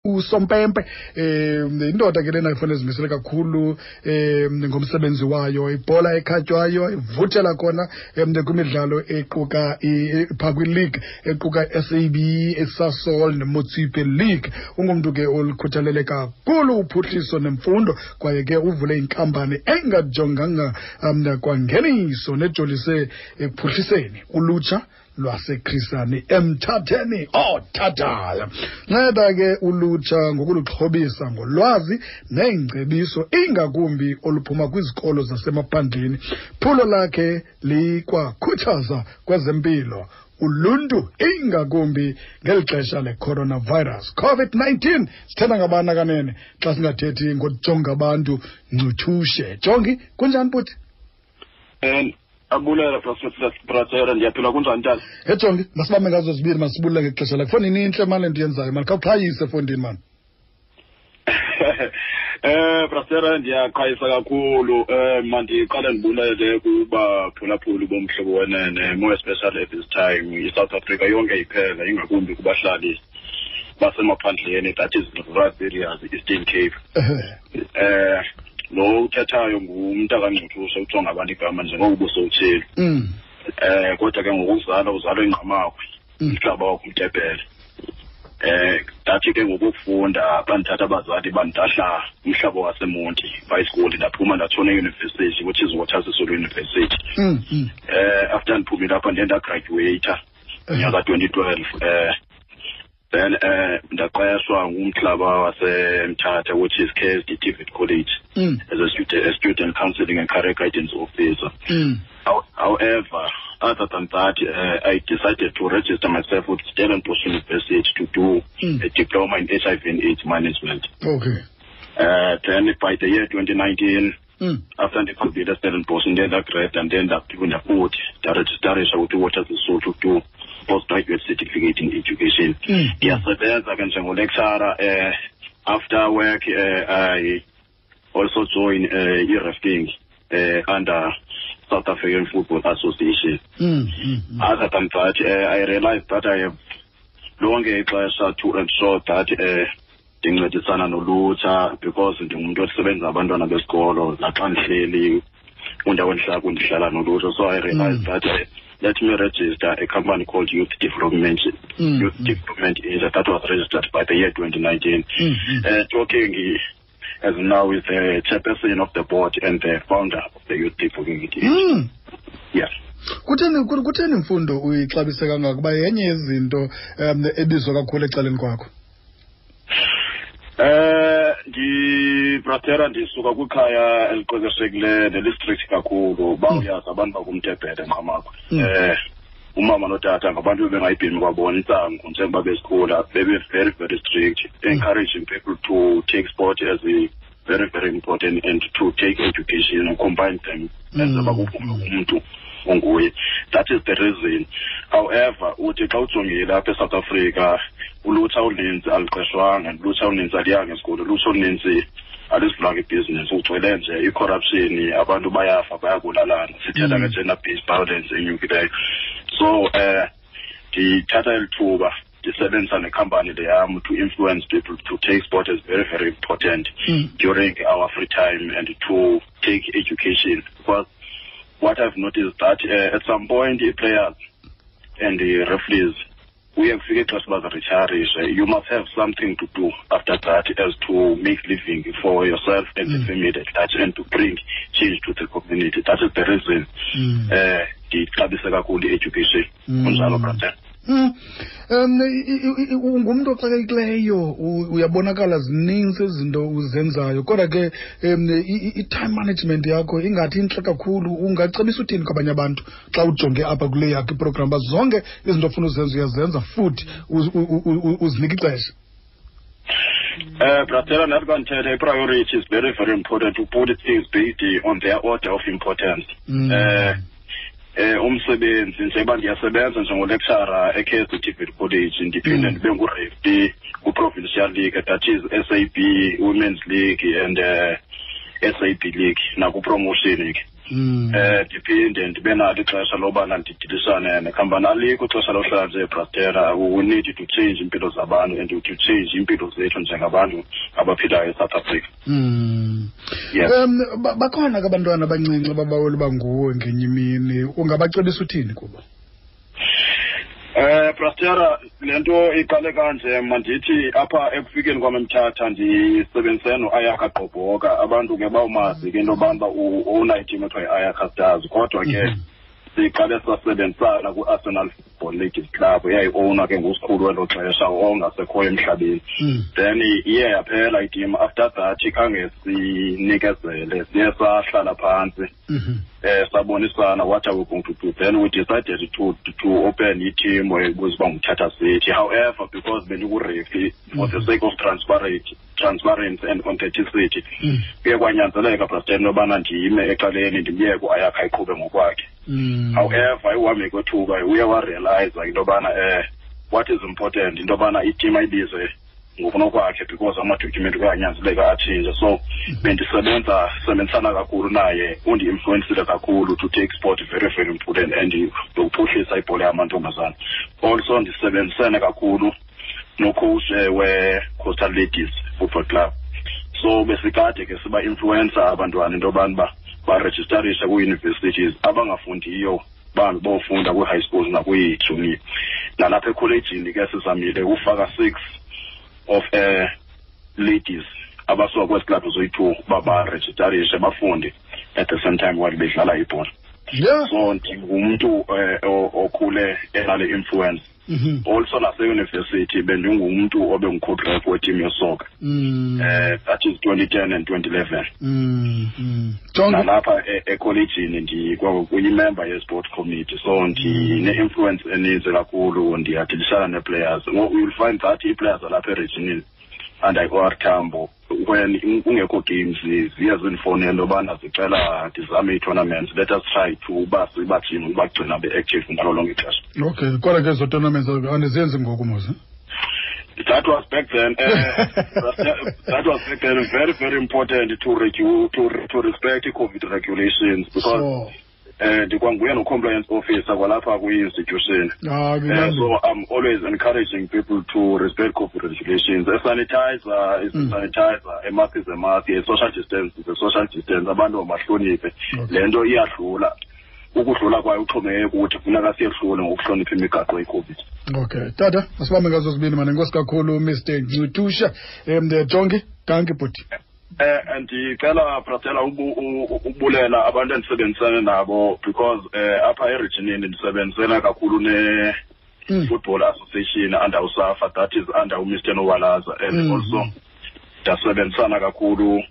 Usompempe indoda ke lena ifanele zimisele kakhulu ngomsebenzi wayo, ibhola ekhatywayo ivuthela khona kwimidlalo equka phaa kwi-league equka i-SAB, iSasol neMotsepe League. Ungumntu ke olukhuthalele kakhulu uphuhliso nemfundo, kwaye ke uvule inkampani engajonganga kwangeniso nejolise ekuphuhliseni ulutsha lwaseKhrisani emthatheni othathayo. Nceda ke ulutsha ngokuluxhobisa ngolwazi neengcebiso, ingakumbi oluphuma kwizikolo zasemaphandleni. Phulo lakhe likwakhuthaza kwezempilo uluntu, ingakumbi ngeli xesha le-coronavirus COVID-19. Sithetha ngabana kanene xa singathethi ngojonga abantu Ncuthushe. Jongi, kunjani bhuti? Abulela, Brother, ndiyaphila. Kunjani, tata? Ejongi, masibambe ngazo zibini, masibulele ngexesha lakho. Fondini, intle mani le nto yenzayo mani, khawuqhayise fondini mani. Brother, ndiyaqhayisa kakhulu. Mandiqale ndibulele kubaphulaphuli boMhlobo Wenene, more especially at this time iSouth Africa yonke iphela, ingakumbi kubahlali basemaphandleni, that is rural areas, Eastern Cape. Lo uthethayo ngumntu kaNgcuthuse, ujonga abantu igama njengoko ubusowutshilo. Kodwa ke ngokuzalwa uzalwa eNgqamakhwe, umhlaba wakho uMtebhele. Ndathi ke ngokufunda bandithatha abazali bandilahla umhlaba waseMonti high school, ndaphuma ndatshona eyunivesithi, which is Walter Sisulu University. After ndiphumile apha ndiye ndagraduata nyaka 2012. Then ndaqeshwa ngumhlaba waseMthatha, which is KSD TVET College, as a student counseling and career guidance officer. However, other than that, I decided to register myself with Stellenbosch University to do a diploma in HIV and AIDS management. Then by the year 2019, after ndiqhubile Stellenbosch, ndiye ndagrade and then ndaphinda futhi ndarejistarisha with Walter Sisulu to do postgraduate certificate in education. Ndiyasebenza ke njengolecturer. After work, I also join i-refing under South African Football Association. Other than that, I realized that I have lonke ixesha to ensure that ndincedisana nolutsha, because ndingumntu osebenza abantwana besikolo. Naxa ndihleli kwindawo endihlala kundihlala nolutsha, so I realized that let me register a company called Youth Development Youth Development Asia that was registered by the year 2019. Talking as now is the chairperson of the board and the founder of the Youth Development Asia. Yes. Kutheni imfundo uyixabise kangaka, kuba yenye yezinto ebizwa kakhulu ecaleni kwakho? Ndi, brother, ndisuka kwikhaya eliqeqeshekileyo nelistrict kakhulu. Bawuyazi abantu bakumtebhele Nqamakwe. Umama notata ngabantu bebengayibhemi kwabona intsangu njengoba besikhula, bebe very very strict, encouraging people to take sport as a very very important and to take education and combine them enze bakuvume umntu onguye. That is the reason. However, uthi xa ujongile apha eSouth Africa, ulutsha oluninzi aluqeshwanga, ulutsha oluninzi aliyanga esikolo, ulutsha oluninzi alizivulanga ibhizinesi, kugcwele nje i-corruption, abantu bayafa, bayabulalana, sithetha nge-gender based violence enyukileyo. So ndithatha eli thuba ndisebenzisa nekhampani le yam to influence people to take sport as very very important during our free time and to take education, because what I've noticed that at some point i-players and the referees kuye kufike ixesha uba ziritayarishe. You must have something to do after that as to make living for yourself and the family at large and to bring change to the community. That is the reason ndixabise kakhulu i-education. Kunjalo, brother. Ungumntu oxakekileyo, uyabonakala zininzi izinto uzenzayo, kodwa ke i-time management yakho ingathi intle kakhulu. Ungacebisa uthini kwabanye abantu xa ujonge apha kule yakho iprogram, uba zonke izinto ofuna uzenza uyazenza futhi uzinike ixesha? Brother, nathi bandithetha, i-priority is very very important, to put things based on their order of importance. Umsebenzi, njengoba ndiyasebenza njengolecturer eKSD TVET College, ndiphinde ndibe ngureferee ku-provincial league, that is SAB Women's League and SAB League, naku-promotion ke. Ndiphinde ndibe nalo ixesha lobana ndidilisane nekhampani. Alikho ixesha lohlala nje, brastera. We need to change iimpilo zabantu and to change iimpilo zethu njengabantu abaphilayo eSouth Africa. Yes. Bakhona ke abantwana abancinci ababawela uba nguwe ngenye imini, ungabacebisa uthini kubo? Brastera, le nto iqale kanje. Mandithi apha ekufikeni kwam eMthatha ndisebenzise no-Ayakha Gqobhoka. Abantu ke bawumazi ke into yobana uba u-owna iteam ethiwa yi-Ayakha Stars, kodwa ke siqale sasebenzisana kwi-Arsenal Football Ladies Club, eyayi-owna ke ngusikhulu welo xesha ongasekhoyo emhlabeni. Then iye yaphela iteam. After that khange sinikezele, siye sahlala phantsi, sabonisana what are we going to do. Then we decided to open i-team ebizwa uba nguMthatha City. However, because bendiku-referee, for the sake of transparency and authenticity, kuye kwanyanzeleka, President, yobana ndime ecaleni, ndimyeke uAyakha ayiqhube ngokwakhe. However, ekuhambeni kwethuba uye warealiza into yobana what is important into yobana iteam ayibize ngokunokwakhe, because amadocument kuyanyanzeleka atshintshe. So bendisebenza sebenzisana kakhulu naye, undi-influencile kakhulu to take sport very very important and nokuphuhlisa ibhola yamantombazana. Also ndisebenzisene kakhulu nocoach we-Coastal Ladies Football Club, so besikade ke siba-influencer abantwana into yobana uba barejistarishe kwii-universities, abangafundiyo bahambe bofunda kwii-high schools nakwii-junior. Nalapha ekholejini ke sizamile ufaka 6 of ladies abasuka kwezi club zoyi-2 uba barejistarishe bafunde at the same time while bedlala ibhola. So ndingumntu okhule enale influence. Also naseyunivesithi bendingumntu obengu-co-ref weteam yesoccer, that is 2010 and 2011. Jonge. Nalapha ekholejini ndikwakuyimember ye-sport committee, so ndine-influence eninzi kakhulu. Ndiyadilishana nee-players. You'll find that ii-players zalapha eregionini under i-OR Tambo, when kungekho games, ziye zindifowunele yobana zicela ndizame ii-tournaments, let us try to uba sibajime, ubagcina be-active ngalo lonke ixesha. Okay, kodwa ke ezo tournaments andizenzi ngoku mos. That was back then. That was back then. Very, very important to respect the COVID regulations because ndikwanguye no-compliance officer kwalapha kwi-institution. So I'm always encouraging people to respect COVID regulations. A sanitizer is a sanitizer, a mask is a mask, a social distance is a social distance. Abantu mabahloniphe. Le nto iyadlula. Ukudlula kwayo uxhomekeke kuthi, funeka siyehlule ngokuhlonipha imigaqo ye-COVID. Okay, tata, masibambe ngazo zibini mane. Enkosi kakhulu, Mr Ncutusha. Jongi, dankie bhuti. Ndicela, Brastela, ubulela abantu endisebenzisana nabo, because apha eregionini ndisebenzisana kakhulu ne Football Association under uSAFA, that is under uMr Nowalaza, and also ndasebenzisana kakhulu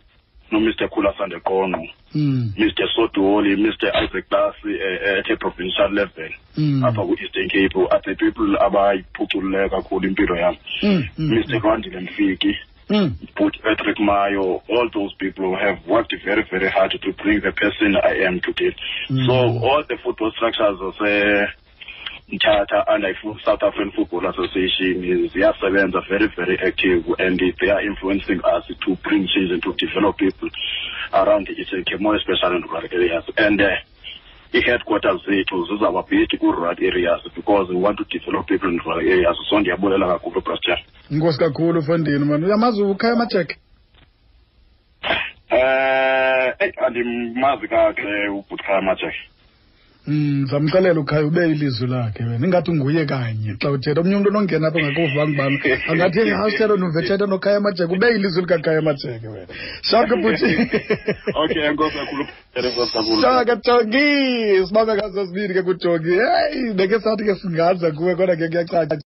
noMr Khula Sandeqonqo, Mr Sodoli, Mr Isaac Lasi, at a provincial level apha ku-Eastern Cape are the people abayiphuculileyo kakhulu impilo yam. Mr Rwandile Mfiki, But Patrick Mayo, all those people have worked very, very hard to bring the person I am today. So all the football structures Mthatha and South African Football Association ziyasebenza, very, very active, and they are influencing us to bring change and to develop people around the Eastern Cape, more especially in rural areas. And i-headquarters zethu zizawuba based ku-rural areas because we want to develop people in rural areas. So ndiyabulela kakhulu, Pastor. Inkosi kakhulu, mfondini mani. Uyamazi uKhaya Majeke? Eyi, andimazi kakuhle ubhuti Majeke. Zamxelela uKhaya ube ilizwi lakhe wena. Ingathi nguye kanye xa uthetha. Omnye umntu onongena apha engakuvanga ubana angathi hasithetha nuve thetha noKhaya Majeke, ube ilizwi likaKhaya Majeke wena. Shaka bhuti. Okay, enkosi kakhulu. Enkosi kakhulu. Shaka Jongi, sibambe ngazo sibini ke kuJongi. Hey, beke sathi ke singaza kuwe kodwa ke kuyacaca.